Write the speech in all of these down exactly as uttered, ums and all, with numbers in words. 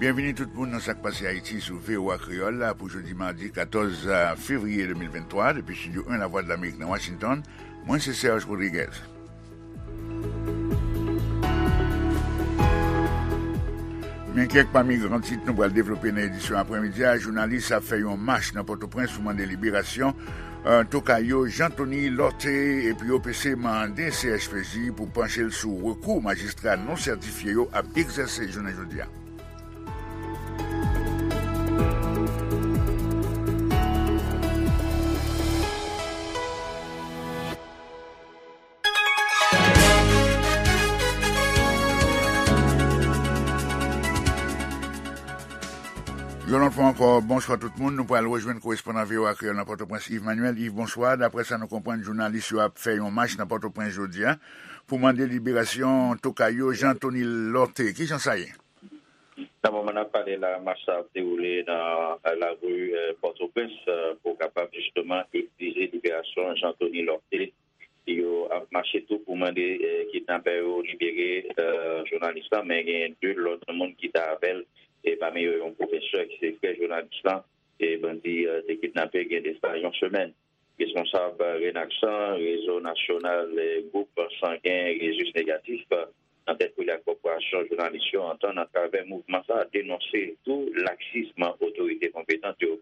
Byenvini tout moun nan Sa k Pase Ayiti sou V O A Kreyòl la pou jodi madi katòz fevriye de mil venntwa, depi Estidyo en Lavwadlamerik nan Washington. Mwen se Serge Rodriguez. Men kèk pami gran tit nou pral devlope nan edisyon aprèmidi a. Jounalis ap fè yon mach nan Pòtoprens pou mande liberasyon, eh, tokay yo Jean Thony Lorthé, epi O P C mande C H P J pou panche l sou rekou majistra non sètifye yo ap egzèse jounen jodi a. Yon lòt fwa ankò, bonswa tout moun. Nou pral rejwenn korespondan V O A Kreyòl nan Pòtoprens, Yves Manuel. Yves, bonswa. Daprè sa nou konprann, jounalis yo ap fè yon mach nan Pòtoprens jodi a pou mande liberasyon tokay yo Jean Thony Lorthé. Kijan sa ye? Nan moman n ap pale la, mach sa ap dewoule nan, eh, lari, eh, Pòtoprens, eh, pou kapab jisteman egzije liberasyon Jean Thony Lorthé. Yo ap mache tou pou mande, eh, kidnapè yo libere, eh, jounalis lan, men gen de lòt moun ki t avè l, e pami yo yon pwofesè ki se frè jounalis lan, e bandi, eh, te kidnape gen de sa yon semèn. Responsab Renaksan, Rezo Nasyonal, eh, Gwoup Sangen Rezus Negatif, eh, nan tèt pou li ak Kòporasyon Jounalis yo antann atravè mouvman sa a denonse tou laksism otorite konpetan yo.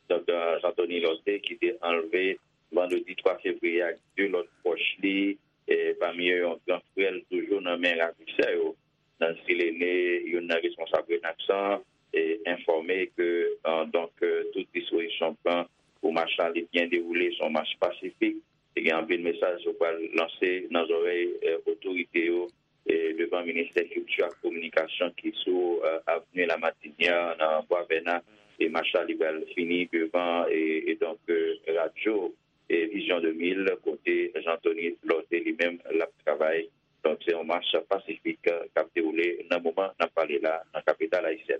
Donk, eh, Jean Thony Lorthé ki te anlve vandredi twa fevriye ak de lòt pwòch li, eh, pami yo yon gran frè l toujou nan men ravisè yo. Nancy Lene, youn nan responsab Renaksan, eh, enfòme ke, eh, donk, eh, tout dispozisyon pran pou mach la li byen dewoule, se yon mach pasifik. Te gen anpil mesaj yo pral lanse nan zòrèy, eh, otorite yo, eh, devan Ministè Kilti ak Kominikasyon ki sou, eh, Avenue La Martinière nan Bwa Vèna, e mach la li pral fini devan, e, e donk, eh, radyo, eh, Vision deux mille, kote Jean Thony Lorthé li menm l ap travay. Donk, se yon mach pasifik, eh, k ap dewoule nan moman n ap pale la nan kapital ayisyèn.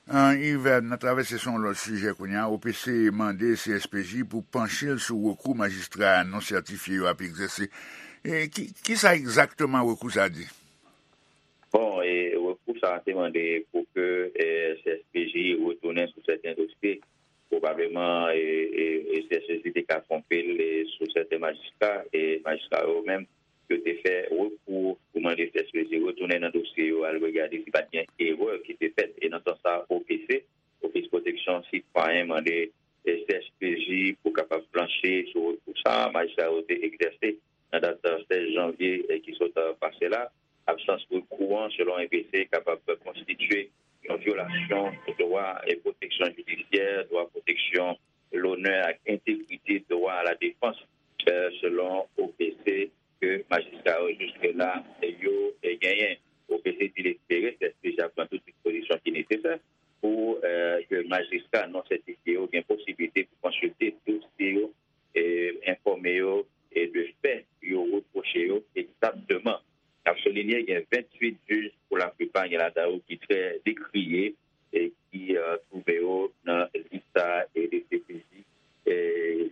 Ah, Yves, n a travèse sou yon lòt sijè kounye a. O P C mande C S P J pou panche l sou rekou majistra non sètifye yo ap egzèse. E ki, ki sa egzakteman rekou sa a di? Bon, e rekou sa a te mande pou ke, eh, C S P J retounen sou sèten dosye. Pwobableman, e, e, e C S P J te ka twonpe l, e, sou sèten majistra, e majistra yo menm, yo te fè rekou pou mande C S P J retounen nan dosye yo, al regade si pa t gen erè ki te fèt. E nan sans sa, O P C, Ofis Pwoteksyon Sitwayen, mande, e, C S P J pou kapab planche sou rekou sa a majistra yo te egzèse nan dat, e, sèz janvye, e, ki sot, e, pase la. Absans rekou an, selon O P C, kapab konstitye yon vyolasyon dwa e pwoteksyon jidisyè, dwa pwoteksyon lonè ak entegrite, dwa a la defans, e, selon O P C, ke majistra yo jiske la yo, e, genyen. O P C di l espere C S P J ap pran tout dispozisyon ki nesesè pou, e, ke majistra non sètifye yo gen posiblite pou konsilte dosye yo, e, enfòme yo, e, de fè yo repwoche yo egzakteman. N ap soulinye, gen venntuit jij, pou laplipa gen ladan yo ki trè dekriye, e ki, e, twouve yo nan lis sa a, e de C P J, e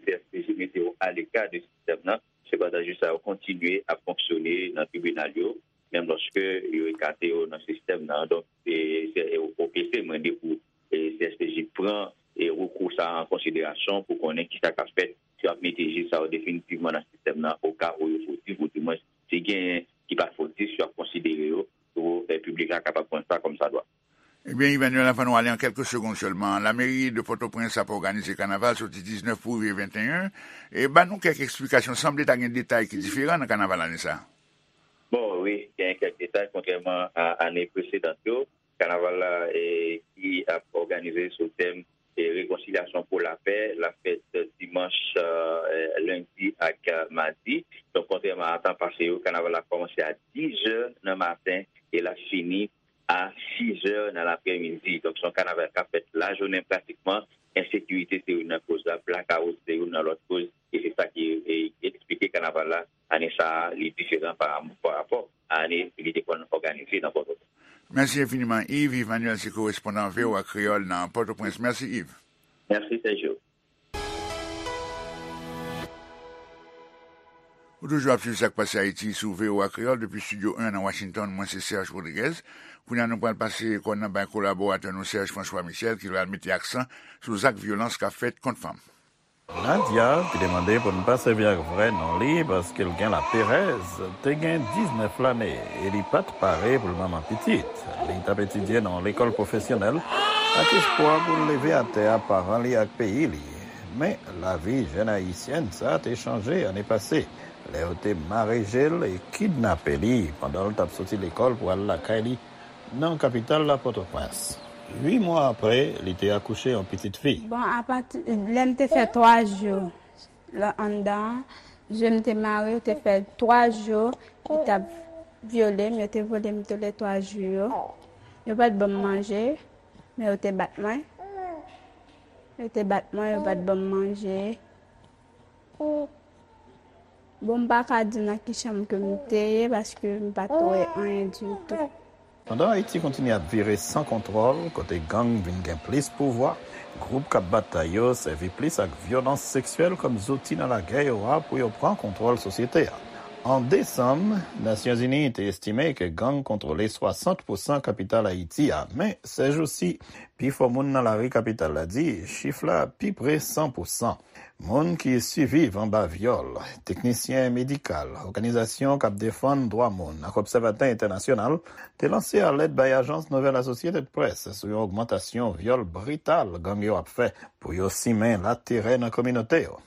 C S P J mete yo aleka de sistèm nan. Sepandan, jij sa yo kontinye ap fonksyone nan tribinal yo, menm lòske yo ekate yo nan sistèm nan. Donk, e, se, e, O P C mande pou, e, C S P J pran, e, rekou sa a an konsiderasyon pou konnen kisa k ap fèt, si y ap mete jij sa yo definitivman nan sistèm nan, oka ou yo fotif, ou dimwen, si genyen ki pa fotif, yo ap konsidere yo pou, e, piblik la kapab konn sa kòmsadwa. Ebyen, Emmanuel, anvan nou ale, an kèlke segonn sèlman, lameri de Pòtoprens ap òganize kanaval soti diznèf pou rive venteyen. E ban nou kèk eksplikasyon. Sanble ta gen detay ki diferan nan kanaval ane sa a. Bon, wi, gen kèk detay, kontrèman a ane presedan yo. Kanaval la, e, ki ap òganize sou tèm, e, rekonsilyasyon pou lapè, l ap fèt dimanch, e, lendi ak, e, madi. Donk, kontrèman a tan pase yo, kanaval la kòmanse a dizè nan maten e l ap fini a sizè nan laprèmidi. Donk, se yon kanaval k ap fèt lajounen pratikman. Ensekirite se youn nan koz la, blakawout se youn nan lòt koz, e se sa ki, e, eksplike kanaval la ane sa a, li diferan pa, pa rapò a ane li te konn òganize nan Pòtoprens. Mèsi enfiniman, Yves. Yves Manuel se korespondan V O A Kreyòl nan Pòtoprens. Mèsi, Yves. Mèsi, Sergio. Ou toujou ap swiv Sa k Pase Ayiti sou V O A Kreyòl depi Estidyo en nan Washington. Mwen se Serge Rodriguez. Kounye a, nou pral pase kòn nan bay kolaboratè nou Serge François Michel, ki pral mete aksan sou zak vyolans k ap fèt kont fanm. Nadia, ki te mande pou n pa sèvi ak vrè non li paske l gen laperèz, te gen diznèf lane e li pa t pare pou l manman pitit. Li t ap etidye nan yon lekòl pwofesyonèl ak espwa pou l leve atè a paran li ak peyi li. Men, lavi jèn ayisyèn sa a te chanje ane pase, lè yo te mare je l e kidnape li pandan l t ap soti lekòl pou al lakay li nan kapital la, Pòtoprens. Uit mwa apre, li te akouche yon pitit fi. Bon, apati lè m te fè twa jou la anndan an, je m te mare, yo te fè twa jou, yo t ap vyole m, yo te vyole m tou le twa jou yo. Yo pa t ban m manje, men yo te bat mwen. Yo te bat mwen, yo pa t ban m manje. Bon, m pa ka di nan ki chanm ke m te ye, paske m pa t wè anyen ditou. Pandan Ayiti kontinye ap vire san kontwòl, kote gang vin gen plis pouvwa, gwoup k ap batay yo sèvi plis ak vyolans seksyèl kòm zouti nan lagè yo a pou yo pran kontwòl sosyete a. An desanm, Nasyonzini te estime ke gang kontwole swasant pousan kapital Ayiti a, men sèjousi, pifò moun nan lari kapital la di chif la pi pre san pousan. Moun ki siviv anba vyòl, teknisyen medikal, òganizasyon k ap defann dwa moun ak obsèvatè entènasyonal te lanse alèt bay ajans nouvèl Associated Press sou yon ogmantasyon vyòl brital gang yo ap fè pou yo simen laterè nan kominote yo.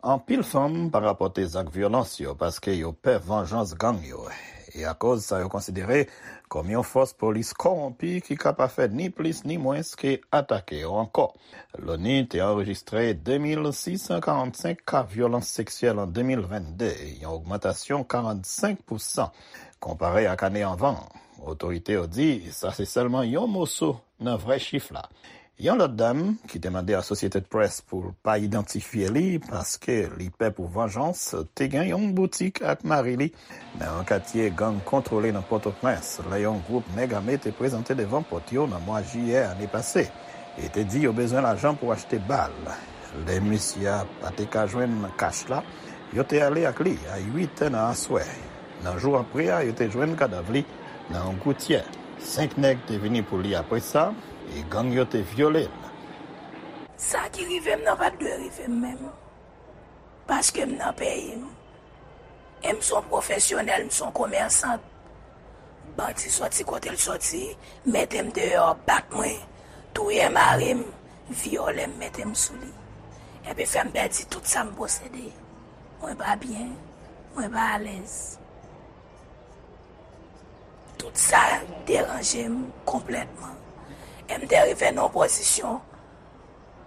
Anpil fanm pa rapòte zak vyolans yo paske yo pè vanjans gang yo, e akoz sa yo konsidere kòm yon fòs polis kòwonpi ki ka pa fè ni plis ni mwens ke atake yo ankò. Loni te anrejistre de mil sis san karannsenk ka vyolans seksyèl an de mil vennde, yon ogmantasyon karannsenk pousan konpare ak ane anvan an. Otorite yo di sa se sèlman yon moso nan vrè chif la. Yon lòt dam ki te mande Associated Press pou l pa idantifye li paske li pè pou vanjans, te gen yon boutik ak mari li nan yon katye gang kontwole nan Pòtoprens lè yon gwoup nèg ame te prezante devan pòt yo nan mwa jiyè ane pase e te di yo bezwen lajan pou achte bal. Lè misye a pa te ka jwenn kach la, yo te ale ak li a uit è nan aswè. Nan jou apre a, yo te jwenn kadav li nan yon goutyè. Senk nèg te vini pou li apre sa, e gang yo te vyole l. Sa ki rive m nan pa t dwe rive m menm. Paske m nan peyi m. E m se yon pwofesyonèl, m se yon komèsant. Bandi soti kote l soti, mete m deyò, bat mwen, touye mari m, vyole m, mete m sou li. Epi fè m pèdi tout sa m posede. Mwen pa byen, mwen pa alèz. Tout sa deranje m konplètman. E m te rive nan yon pozisyon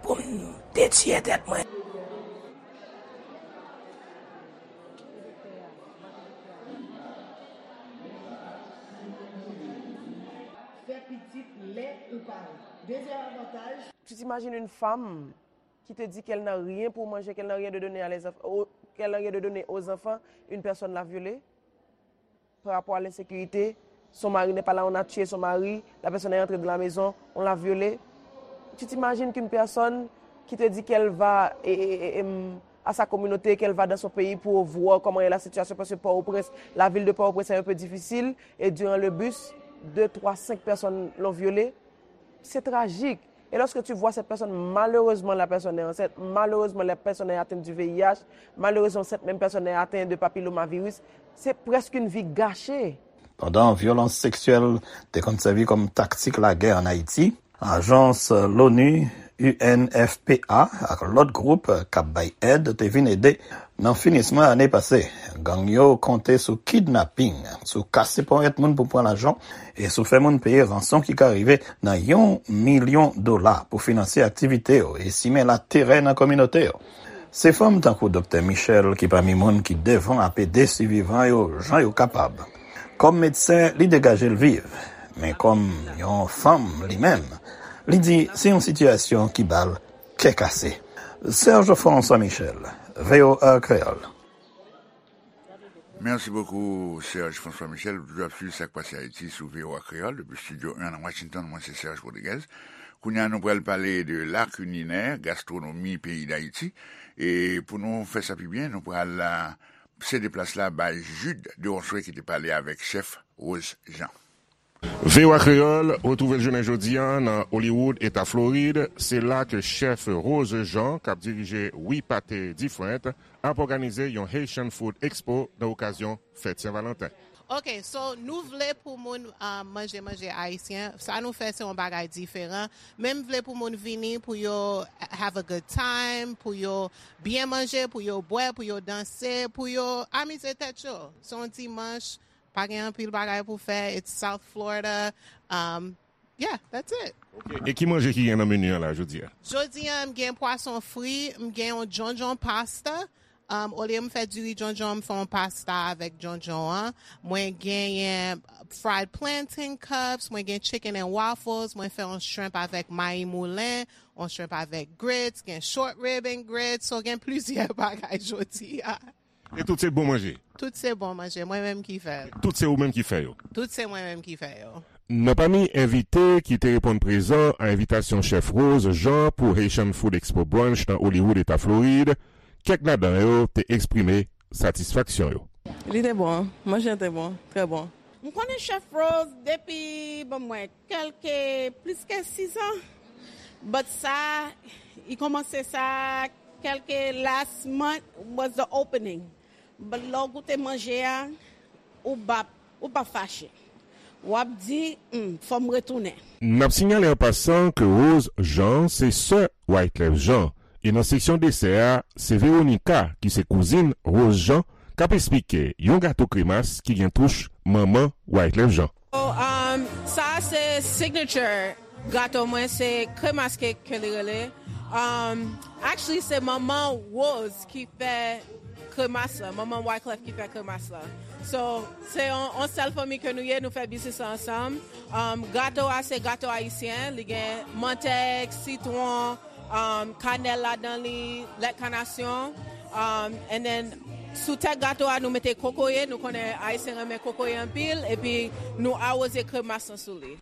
pou m te tiye tèt mwen. Fè pitit lè ou pare. Dezyèm avantaj. Tu t'imagines une femme qui te dit qu'elle n'a rien pour manger, qu'elle n'a rien de donner à les enfants, qu'elle n'a rien de donner aux enfants, une personne l'a violée par rapport à l'insécurité, son mari n'est pas là, on a tué son mari, la personne est entrée dans la maison, on l'a violée. Tu t'imagines qu'une personne qui te dit qu'elle va et, et, et, et, hum, à sa communauté, qu'elle va dans son pays pour voir comment est la situation, parce que Port-au-Prince, la ville de Port-au-Prince est un peu difficile, et durant le bus, deux, trois, cinq personnes l'ont violée. C'est tragique. Et lorsque tu vois cette personne, malheureusement, la personne est enceinte, malheureusement, la personne est atteinte du V I H, malheureusement, cette même personne est atteinte de papillomavirus, c'est presque une vie gâchée. Pandan vyolans seksyèl te konn sèvi kòm taktik lagè ann Ayiti, ajans l'ONU, U N F P A ak lòt gwoup k ap bay èd te vin ede. Nan finisman ane pase, gang yo konte sou kidnaping, sou kase ponyèt moun pou pran lajan, e sou fè moun peye ranson ki ka rive nan yon milyon dola pou finanse aktivite yo e simen laterè nan kominote yo. Se fanm tankou Doktè Michel ki pami moun ki devan ap ede sivivan yo jan yo kapab. Kòm medsen, li degaje l viv, men kòm yon fanm li menm, li di se yon sitiyasyon ki ba l kè kase. Serge François Michel, V O A Kreyòl. Mèsi bokou, Serge François Michel. Ou toujou ap swiv Sa k Pase Ayiti sou V O A Kreyòl depi Estidyo en nan Washington. Mwen se Serge Rodriguez. Kounye a, nou pral pale de la kilinè, gastwonomi peyi Dayiti. E pou nou fè sa pi byen, nou pral, a, sede plas la bay Jude Deronceray ki te pale avèk chèf Rose Jean. V O A Kreyòl retwouve l jounen jodi a nan Hollywood, eta Florid. Se la ke chèf Rose Jean, k ap dirije We Pate Different, ap òganize yon Haitian Food Expo nan okazyon fèt Sen Valanten. Ok, so nou vle pou moun uh, manje manje ayisyen. Sa nou fè se yon bagay diferan. Men m vle pou moun vini pou yo have a good time, pou yo byen manje, pou yo bwè, pou yo danse, pou yo amize tèt yo. Se yon dimanch, pa gen anpil bagay pou fè. It's South Florida. Um, yeah, that's it. Ok. E ki manje ki gen nan meni an la jodi a? Jodi a, m gen pwason fri, m gen yon djondjon pasta. Um, olye m fè diri djondjon, m fè yon pasta avèk djondjon an. Mwen genyen fried plantain cups, mwen gen chicken and waffles, mwen fè yon shrimp avèk mayi moulen, yon shrimp avèk grits, gen short rib and grits, so gen plizyè bagay jodi a. E tout se bon manje? Tout se bon manje, mwen menm ki fè l. Tout se ou menm ki fè yo? Tout se mwen menm ki fè yo. Nan pami envite ki te reponn prezan a envitasyon chèf Rose Jean pou Haitian Food Expo Brunch nan Hollywood, eta Florid, kèk ladan yo te eksprime satisfaksyon yo. Li te bon, manje an te bon, trè bon. M konnen chèf Rose depi, bon, mwen, kèlke, plis ke sis an. But sa, li kòmanse sa, kèlke last month was the opening. But lè w goute manje a, ou p ap, ou p ap fache. W ap di, hmm, fò m retounen. N ap sinyale an pasan ke Rose Jean se sè Wyclef Jean. E nan seksyon desè a, se Veronica, ki se kouzin Rose Jean, k ap esplike yon gato kremas ki gen touch manman Wyclef Jean. So, um, sa se signature gato mwen, se kremas cake ke li rele. Um, actually, se manman Rose ki fè kremas la, manman Wyclef ki fè kremas la. So, se yon, yon sèl fanmi ke nou ye, nou fè biznis la ansanm. Um, gato a, se gato ayisyen, li gen mantèg, sitwon, um, kanèl ladan li, lèt kanasyon. Um, and then, sou tèt gato a, nou mete kokoye, nou konnen ayisyen renmen kokoye anpil, epi nou awoze kremas lan sou li.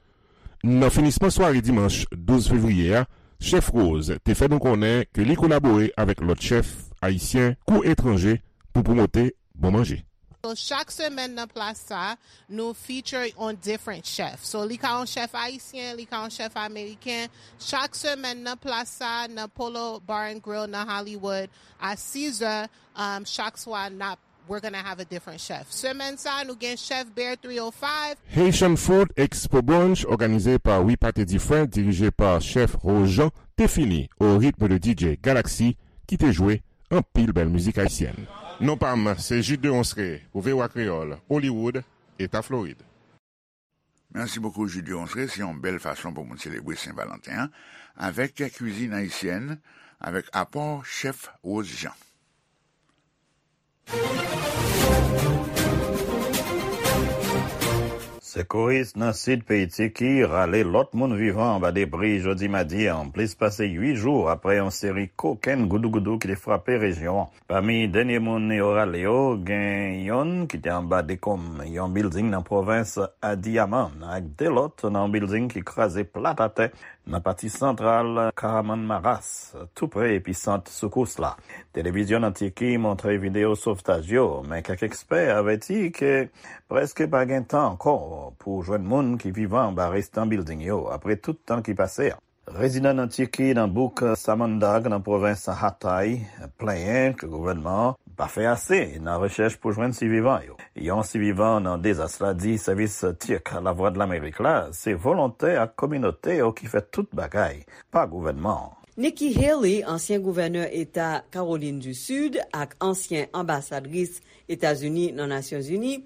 Nan finisman sware dimanch douz fevriye a, chèf Rose te fè nou konnen ke li kolabore avèk lòt chèf ayisyen kou etranje pou pwomote bon manje. So, chak semèn nan plas sa, nou feature on different chef. So, li ka yon chèf ayisyen, li ka yon chèf ameriken. Chak semèn nan plas sa, nan Polo Bar and Grill nan Hollywood, a sis zè, um, chak swa, n ap, we're gonna have a different chef. Semèn sa, nou gen chèf Bear three oh five. Haitian Food Expo Brunch, òganize pa We Pate Different, dirije pa chèf Rose Jean, te fini au rythme de D J Galaxy, ki te jwe anpil bèl mizik ayisyèn. Non pa m, se Jude Deronceray pou V O A Kreyòl, Hollywood, eta Florid. Merci beaucoup, Jude Deronceray. Se yon bèl fason pou moun selebre Sen Valanten an avèk kwizin ayisyèn, avèk apò chèf Rose Jean. Sekouris nan sid peyi Tiki rale lòt moun vivan anba debri jodi madi an, plis pase uit jou apre yon seri kokenn goudougoudou ki te frape rejyon an. Pami dènye moun yo rale yo, gen yonn ki te anba dekonm yon bilding nan pwovens Adiyaman, ak de lòt nan yon bilding ki kraze plat atè nan pati santral Kahramanmaraş, tou pre episant soukous la. Televizyon nan Tiki montre videyo sovtaj yo, men kèk ekspè avèti ke prèske pa gen tan ankò pou jwenn moun ki vivan anba restan bilding yo, apre tout tan ki pase a. Rezidan nan Tiki, nan bouk Samandag, nan pwovens Hatay, plenyen ke gouvènman an pa fè ase nan rechèch pou jwenn sivivan yo. Yon sivivan nan dezas la di sèvis Tik Lavwadlamerik la se volontè ak kominote yo ki fè tout bagay, pa gouvènman an. Nikki Haley, ansyen gouvènè eta Kawolin di Sid ak ansyen anbasadris Etazini nan Nasyonzini,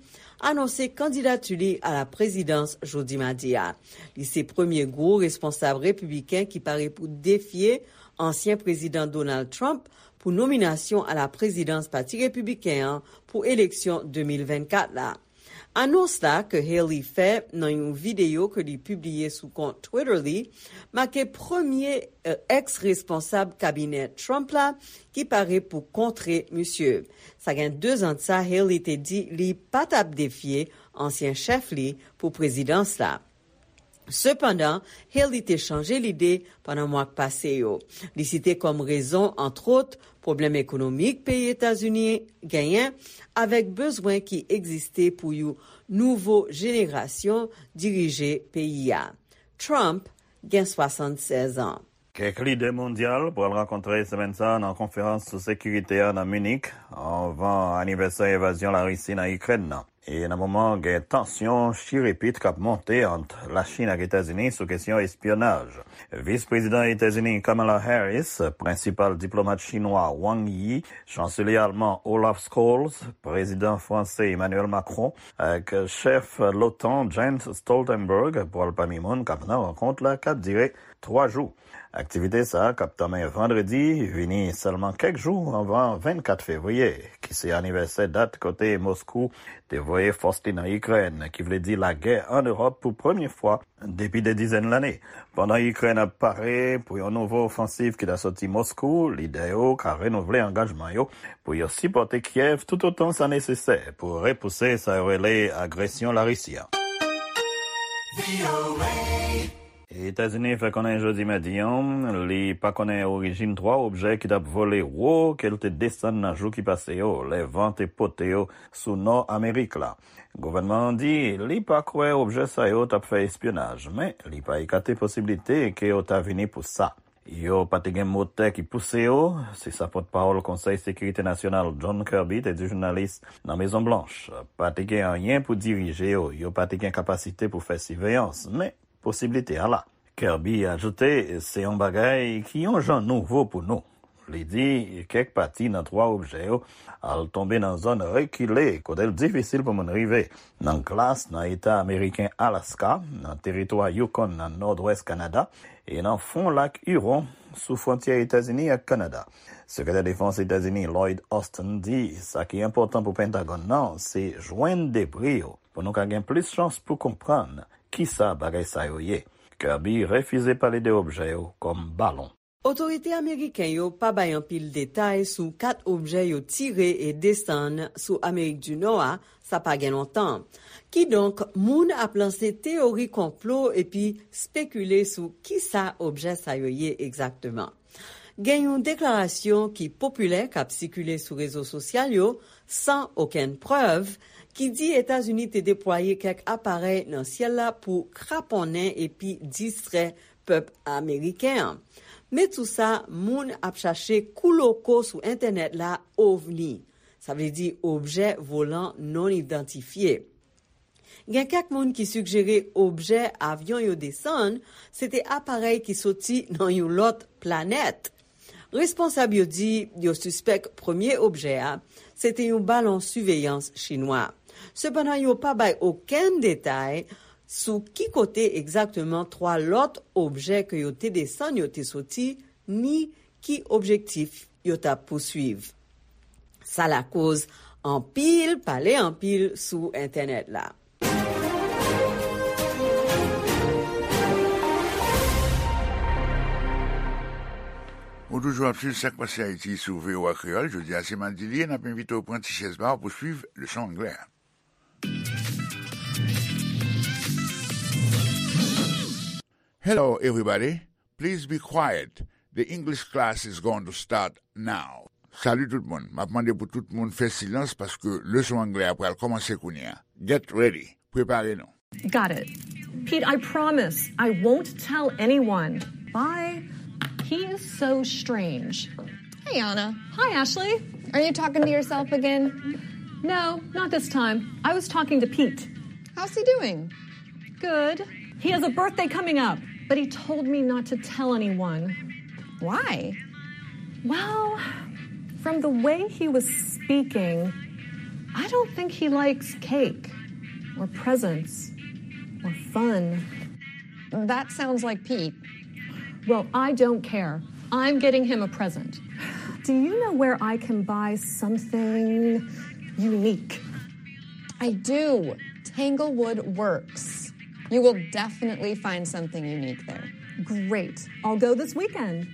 anonse kandidati li a la prezidans jodi madi a. Li se premye gwo responsab repibliken ki pare pou defye ansyen prezidan Donald Trump pou nominasyon a la prezidans Pati Repibliken an pou eleksyon de mil vennkat la. Anons la ke Haley fè nan yon videyo ke li pibliye sou kont Twitter li make premye, eh, eks-responsab kabinè Trump la ki pare pou kontre misye. Sa gen de zan de sa, Haley te di li pa t ap defye ansyen chèf li pou prezidans la. Sepandan, Haley te chanje lide pandan mwa k pase yo. Li site kòm rezon, antwòt, pwoblèm ekonomik peyi Etazini genyen, avèk bezwen ki egziste pou yon nouvo jenerasyon dirije peyi a. Trump gen swasannsèz an. Kèk lidè mondyal pral rankontre semèn sa a nan konferans sou sekirite a nan Munich, anvan anivèsè envazyon Larisi nan Ikrèn nan. E nan moman gen tansyon chirepit k ap monte ant Lachin ak Etazini sou kesyon espyonaj. Vis prezidan Etazini Kamala Harris, prensipal diplomat chinwa Wang Yi, chanselye alman Olaf Scholz, prezidan franse Emmanuel Macron, ak chèf l'OTAN Jens Stoltenberg pral pami moun k ap nan rankont la k ap dire twa jou. Aktivite sa a, k ap tanmen vandredi, vini sèlman kèk jou anvan vennkat fevriye, ki se anivèsè dat kote Moskou te voye fòs li nan Ikrèn, ki vle di lagè ann Ewòp pou premye fwa depi de dizèn lane. Pandan Ikrèn ap pare pou yon nouvo ofansiv ki ta soti Moskou, lidè yo ka renouvle angajman yo pou yo sipòte Kyèv toutotan sa nesesè pou repouse sa yo rele agresyon Larisi a. Etazini fè konnen jodi madi an, li pa konnen orijin twa objè ki t ap vole wo ke l te desann nan jou ki pase yo, lè van te pote yo sou nò Amerik la. Gouvènman an di li pa kwè objè sa yo t ap fè espyonaj, men li pa ekate posiblite ke yo ta vini pou sa. Yo pa te gen motè ki pouse yo, se sa pòtpawòl Konsèy Sekirite Nasyonal John Kirby te di jounalis nan Mezon Blanch. Pa te gen anyen pou dirije yo, yo pa te gen kapasite pou fè siveyans, men posiblite a la. Kirby ajoute, se yon bagay ki yon jan nouvo pou nou. Li di, kèk pati nan twa objè yo al tonbe nan zòn rekile kote l difisil pou moun rive, nan glas nan eta ameriken Alaska, nan teritwa Yukon nan nòdwès Kanada, e nan fon lak Huron, sou fwontyè Etazini ak Kanada. Sekretè Defans Etazini Lloyd Austin di sa ki enpòtan pou Pentagòn nan se jwenn debri yo pou nou ka gen plis chans pou konprann kisa bagay sa yo ye. Kirby refize pale de objè yo kòm balon. Otorite ameriken yo pa bay anpil detay sou kat objè yo tire e desann sou Amerik di Nò a, sa pa gen lontan. Kidonk, moun ap lanse teyori konplo epi spekile sou kisa objè sa yo ye egzakteman. Gen yon deklarasyon ki popilè k ap sikile sou rezo sosyal yo, san okenn prèv, ki di Etazini te deplwaye kèk aparèy nan syèl la pou kraponnen epi distrè pèp ameriken an. Men tou sa, moun ap chache kouloko sou entènèt la ovni, sa vle di objè volan non idantifye. Gen kèk moun ki sigjere objè avyon yo desann se te aparèy ki soti nan yon lòt planèt. Responsab yo di yo sispèk premye objè a se te yon balon siveyans chinwa. Sepandan, yo pa bay okenn detay sou ki kote egzakteman twa lòt objè ke yo te desann yo te soti, ni ki objektif yo t ap pouswiv. Sa lakoz anpil pale anpil sou entènèt la. Ou toujou ap swiv Sa k Pase Ayiti sou V O A Kreyòl. Jodi a se madi li ye, n ap envite w pran ti chèz pa w pou swiv leson anglè a. Hello, everybody. Please be quiet. The English class is going to start now. Salut tout moun. M ap mande pou tout moun fè silans paske leson anglè a pral kòmanse kounye a. Get ready. Prepare nou. Got it. Pete, I promise I won't tell anyone. Bye. He is so strange. Hey, Anna. Hi, Ashley. Are you talking to yourself again? No, not this time. I was talking to Pete. How's he doing? Good. He has a birthday coming up, but he told me not to tell anyone. Why? Well, from the way he was speaking, I don't think he likes cake or presents or fun. That sounds like Pete. Well, I don't care. I'm getting him a present. Do you know where I can buy something unique? I do. Tanglewood Works. You will definitely find something unique there. Great. I'll go this weekend.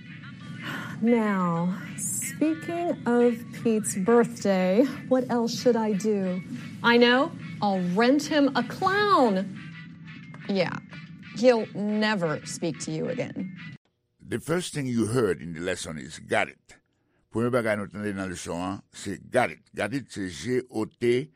Now, speaking of Pete's birthday, what else should I do? I know. I'll rent him a clown. Yeah. He'll never speak to you again. The first thing you heard in the lesson is "got it". Premye bagay nou tande nan leson an se "got it". "Got it" se G O T,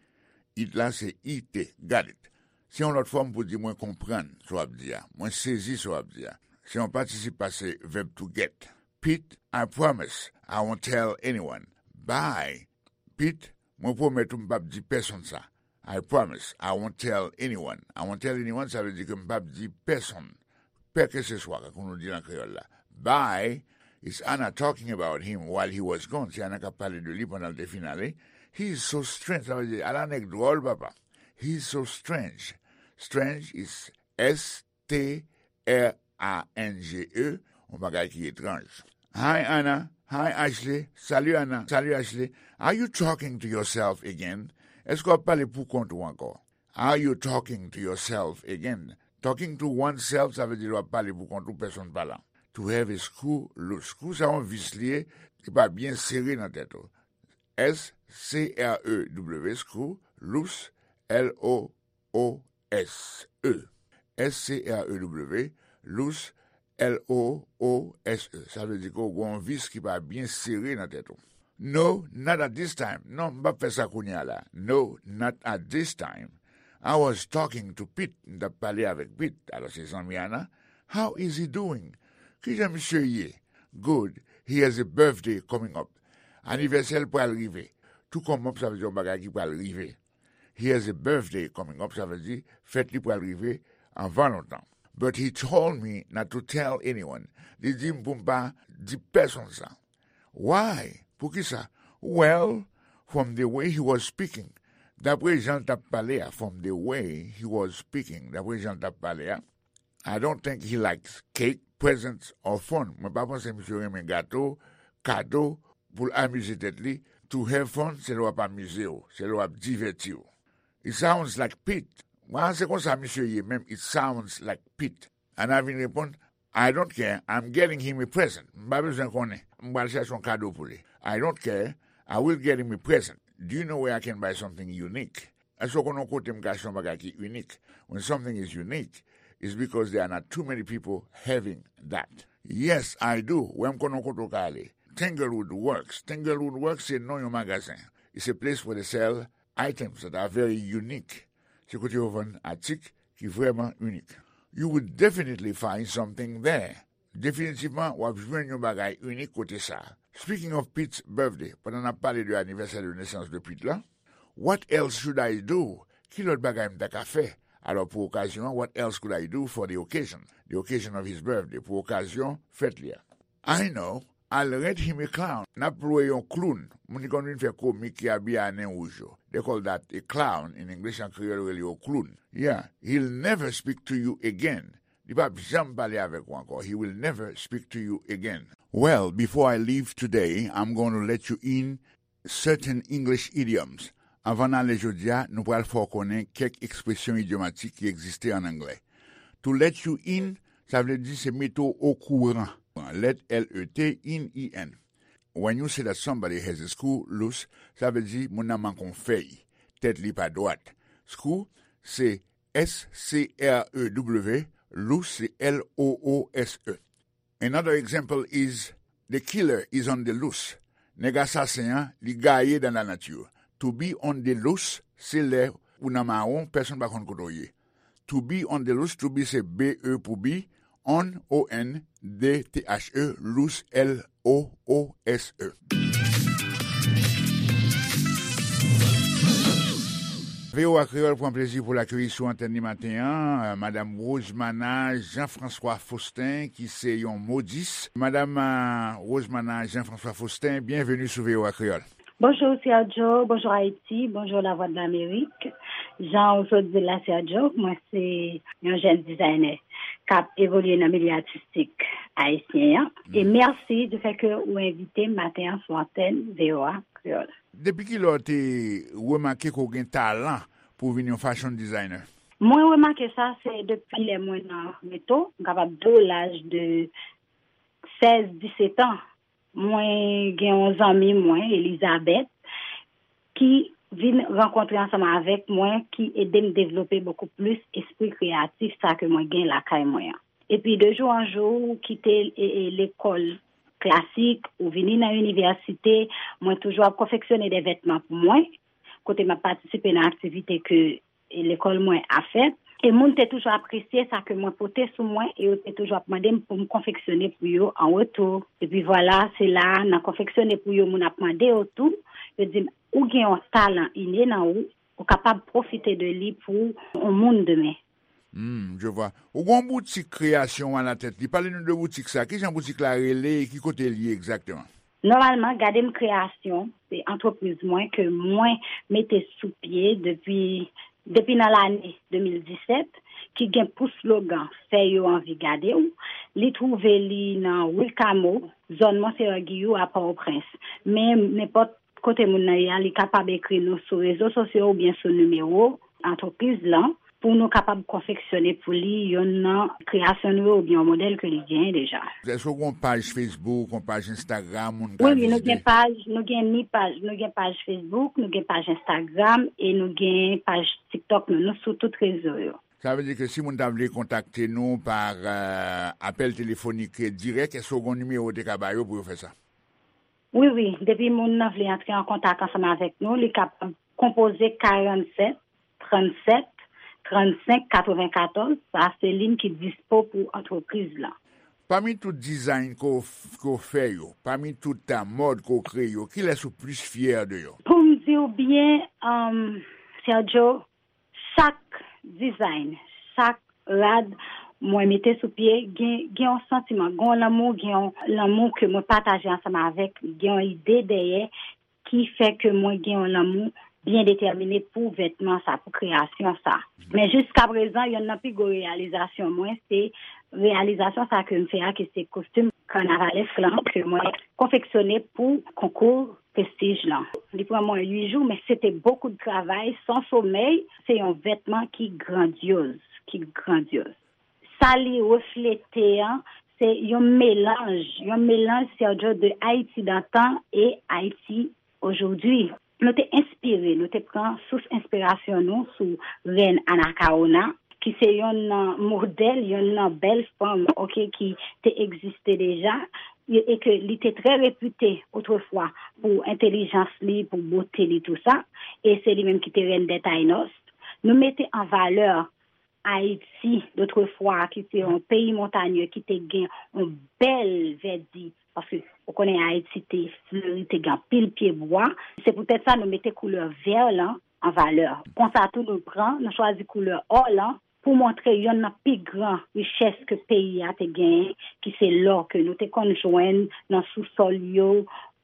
"it" la se I T. "Got it" se yon lòt fòm pou di "mwen konprann sa w ap di a", "mwen sezi sa w ap di a". Se yon patisip pase vèb "to get". "Pete, I promise I won't tell anyone." Bye. "Pete, mwen pwomèt ou m p ap di pèsonn sa." "I promise I won't tell anyone." "I won't tell anyone" sa vle di ke m p ap di pèsonn, pè ke se swa, kankou nou di nan kreyòl la. "Bye." It's Anna talking about him while he was gone. Se Anna k ap pale de li pandan l te fin ale. "He is so strange." Sa vle di, ala nèg dwòl, papa. "He is so strange." Strange is S T R A N G E, yon bagay ki etranj. "Hi, Anna. Hi, Ashley. Salut, Anna. Salut, Ashley. Are you talking to yourself again?" Èske w ap pale pou kont ou ankò? "Are you talking to yourself again?" Talking to oneself, sa vle di lè w ap pale pou kont ou, pèsonn pa la. "To have a screw loose." Screw, sa yon vis li ye, ki pa byen sere nan tèt ou. S C R E W, screw, loose, L O O S E. S C R E W, loose, L O O S E. Sa vle di ke w gen yon vis ki pa byen sere nan tèt ou. "No, not at this time." Non, m p ap fè sa kounye a la. "No, not at this time." "I was talking to Pete." M t ap pale avèk Pete. Alò, se zanmi Anna. "How is he doing?" Kijan misye ye? "Good. He has a birthday coming up." Anivèsè l pral rive. "To come up" sa vle di yon bagay ki pral rive. "He has a birthday coming up" sa vle di fèt li pral rive anvan lontan. "But he told me not to tell anyone." Li di m pou m pa di pèsonn sa. "Why?" Poukisa? "Well, from the way he was speaking." Dapre jan l t ap pale a. "From the way he was speaking." Dapre jan l t ap pale a. "I don't think he likes cake, presents or fun." Mwen pa panse misye renmen gato, kado, pou l amize tèt li. "To have fun" se lè w ap amize w, se lè w ap divèti w. "It sounds like Pete." Mwen, se konsa misye ye menm. "It sounds like Pete." Anna vin reponn, "I don't care, I'm getting him a present." M pa bezwen konnen. M pral chèche yon kado pou li. "I don't care, I will get him a present. Do you know where I can buy something unique?" Èske w konn yon kote m ka achte yon bagay ki inik? When something is unique, it's because there are not too many people having that. "Yes, I do." Wi, m konn yon kote w ka ale. "Tanglewood Works." Tanglewood Works se non yon magazen. It's a place where they sell items that are very unique. Se kote yo vann atik ki vrèman inik. "You would definitely find something there." Definitivman, w ap jwenn yon bagay inik kote sa a. Speaking of Pete's birthday, pandan n ap pale de anivèsè de nesans de Pete la, "What else should I do?" Ki lòt bagay m ta ka fè? Alò, pou okazyon an, "What else could I do for the occasion?" The occasion of his birthday, pou okazyon fèt li a. "I know, I'll rent him a clown." N ap lwe yon kloun, moun ki konn vin fè komik, ki abiye a nen wouj yo. They call that a clown in English, an kreyòl yo rele yo kloun. "Yeah, he'll never speak to you again." Li p ap janm pale avèk ou ankò. "He will never speak to you again." "Well, before I leave today, I'm going to let you in certain English idioms." Anvan n ale jodi a, nou pral fè w konnen kèk ekspresyon idyomatik ki egziste ann anglè. "To let you in," sa vle di se mete w okouran. Let, L E T, in, I N. When you say that somebody has a screw loose, sa vle di moun nan manke yon fèy, tèt li pa dwat. Screw se S C R E W, loose se L O O S E. Another example is, "The killer is on the loose." Nèg asasen an, li gaye dans la nature. To be on the loose, se lè ou nan mawon, pèsonn pa konn kote w ye. To be on the loose, to be se B E pou be, on, O N, D T H E, loose, L O O S E. V O A Kreyòl pran plezi pou l akeyi sou antèn li maten an, euh, Madam Rosemana Jean-François Faustin, ki se yon modis. Madam, euh, Rosemana Jean-François Faustin, byenveni sou V O A Kreyòl. Bonjou, Sergio. Bonjou, Ayiti. Bonjou, Lavwadlamerik. Jan ou sot di l la, Sergio, mwen se yon jèn dizayne k ap evolye nan milye atistik ayisyen an. E mèsi di fè ke ou envite m maten an sou antèn V O A Kreyòl. Depi kilè w te remake ke w gen talan pou w vin yon fashion designer? Mwen remake sa, se depi lè mwen nan geto, m kapab di w laj de sèz, disèt an. Mwen gen yon zanmi mwen, Elizabeth, ki vin rankontre ansanm avèk mwen, ki ede m devlope bokou plis espri kreyatif sa ke mwen gen lakay mwen an. Epi de jou an jou, kite e, e, lekòl klasik ou vini nan inivèsite, mwen toujou ap konfeksyone de vètman pou mwen, kote m ap patisipe nan aktivite ke e, lekòl mwen ap fè. E moun te toujou apresye sa ke mwen pote sou mwen e yo te toujou ap mande m pou m konfeksyone pou yo an retou. Epi vwala, se la, nan konfeksyone pou yo, moun ap mande yo tou. Yo di m, ou gen yon talan ine nan ou, ou kapab pwofite de li pou yon moun demen. Hmm, je vois. Ou gon boutik kreyasyon a la tèt li. Pale nou de boutik sa. Ki jan boutik la rele e ki kote l ye egzakteman? Nòmalman, Gade M Kreyasyon, se antrepriz mwen ke mwen mete sou pye depi, depi nan lane de mil disèt, ki gen pou slogan Fè yo anvi gade w. Li twouve li nan Wilkamo, zòn Monseyè Giyou a Pòtoprens. Men nenpòt kote moun nan ye a, li kapab ekri nou sou rezo sosyo oubyen sou nimewo antrepriz lan pou nou kapab konfeksyone pou li yonn nan kreyasyon nou yo oubyen yon modèl ke li genyen deja. Èske w gen yon paj Facebook, yon paj Instagram, moun ka vizite? Wi, wi, nou gen paj, nou gen ni paj, nou gen paj Facebook, nou gen paj Instagram e nou gen paj TikTok nou. Nou sou tout rezo yo. Sa vle di ke si moun ta vle kontakte nou pa, euh, apèl telefonik dirèk, èske w gen yon nimewo w te ka ba yo pou yo fè sa? Wi, wi. Depi moun nan vle antre an kontak ansanm avèk nou, li kapab konpoze karannsèt, trannsèt, trannsenk, katrevenkatòz. Sa se liy ki dispo pou antrepriz lan. Pami tout dizayn ke w f-, ke w fè yo, pami tout, uh, mòd ke w kreye yo, kilès ou plis fyè de yo? Pou m di w byen, um, Sergio, chak dizayn, chak rad mwen mete sou pye, gen, gen yon santiman, gen yon lanmou, gen yon lanmou ke mwen pataje ansanm avèk, gen yon ide dèyè ki fè ke mwen gen yon lanmou byen detèmine pou vètman sa, pou kreyasyon sa. Men jiskaprezan, yonn nan pi gwo reyalizasyon mwen, se reyalizasyon sa ke m fè a, ki se kostim kannavalesk lan, ke mwen konfeksyone pou konkou Prestij lan. Li pran mwen uit jou, men se te bokou de travay, san somèy. Se yon vètman ki grandyoz, ki grandyoz. Sa li reflete an, se yon melanj, yon melanj, Sergio, de Ayiti dantan e Ayiti ojodwi. Nou te enspire, nou te pran sous enspirasyon nou sou rèn Anacaona, ki se yonn nan modèl, yonn nan bèl fanm, oke, ki te egziste deja, e, e ke li te trè repite otrefwa pou entèlijans li, pou bote li, tou sa, e se li menm ki te rèn dè Taïnos. Nou mete an valè Ayiti, dotrefwa, ki se yon peyi montanye, ki te gen yon bèl vèdi, paske ou konnen Ayiti te fleri, te gen anpil pye bwa. Se poutèt sa nou mete koulè vè lan an valè. Konsa tou nou pran, nou chwazi koulè ò lan pou montre yonn nan pi gran richès ke peyi a te genyen, ki se lò ke nou te konn jwenn nan sousòl yo,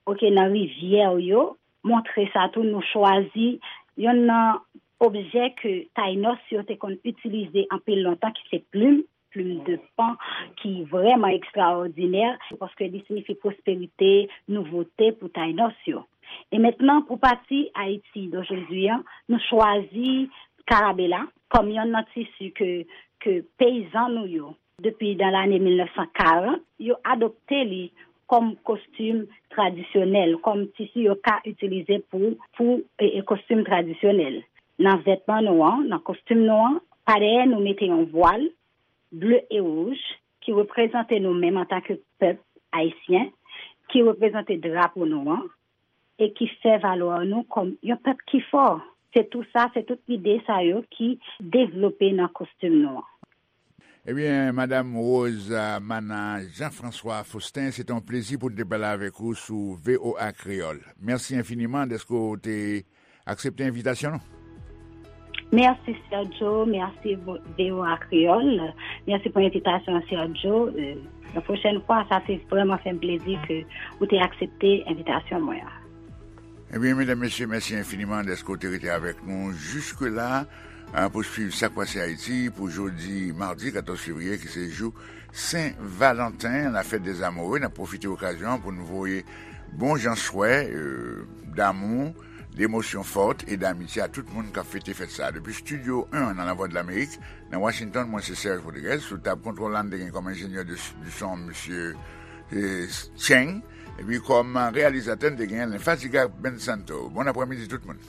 oke, nan rivyè yo. Montre sa tou, nou chwazi yonn nan objè ke Taïnos yo te konn itilize anpil lontan, ki se plim, plim de pan, ki vrèman ekstraòdinè, paske li siyifi pwosperite, nouvote pou Taïnos yo. E mentnan, pou pati Ayiti dojodi an, nou chwazi karabela kòm yonn nan tisi ke, ke peyizan nou yo, depi nan lane mil nèf san karant, yo adopte li kòm kostim tradisyonèl, kòm tisi yo ka itilize pou, pou, e, e, kostim tradisyonèl. Nan vètman nou an, nan kostim nou an, pa dèyè nou mete yon vwal ble e wouj ki reprezante nou menm antanke pèp ayisyen, ki reprezante drapo nou an, e ki fè valè nou kòm yon pèp ki fò. Se tou sa, se tout ide sa yo ki devlope nan kostim nou an. Ebyen, Madam Rose, euh, Mana Jean-François Faustin, se te yon plezi pou n te pale avèk ou sou V O A Kreyòl. Mèsi enfiniman dèske w te aksepte envitasyon nou. Mèsi, Sergio. Mèsi, V O A Kreyòl. Mèsi pou envitasyon an, Sergio. Euh, la pwochèn fwa, sa te vrèman fè m plezi ke ou te aksepte envitasyon mwen an. Ebyen, medam, mesye, mèsi enfiniman dèske w te rete avèk nou jiske la, a, pou swiv Sa k Pase Ayiti pou jodi madi katòz fevriye, ki se jou Sen Valanten, la fèt dè amoure. N ap pwofite okazyon an pou n voye bon jan swè, euh, damou, demosyon fòt e damitye a tout moun k ap fete fèt sa a. Depi Estidyo en nan Lavwadlamerik, nan Washington, mwen se Serge Rodriguez. Sou tab kontwòl la, n te gen kòm enjenyè de, du son, mesye, eh, Cheng. Epi kòm reyalizatè, n te gen Lenfatiga Ben Santo. Bon aprèmidi tout moun.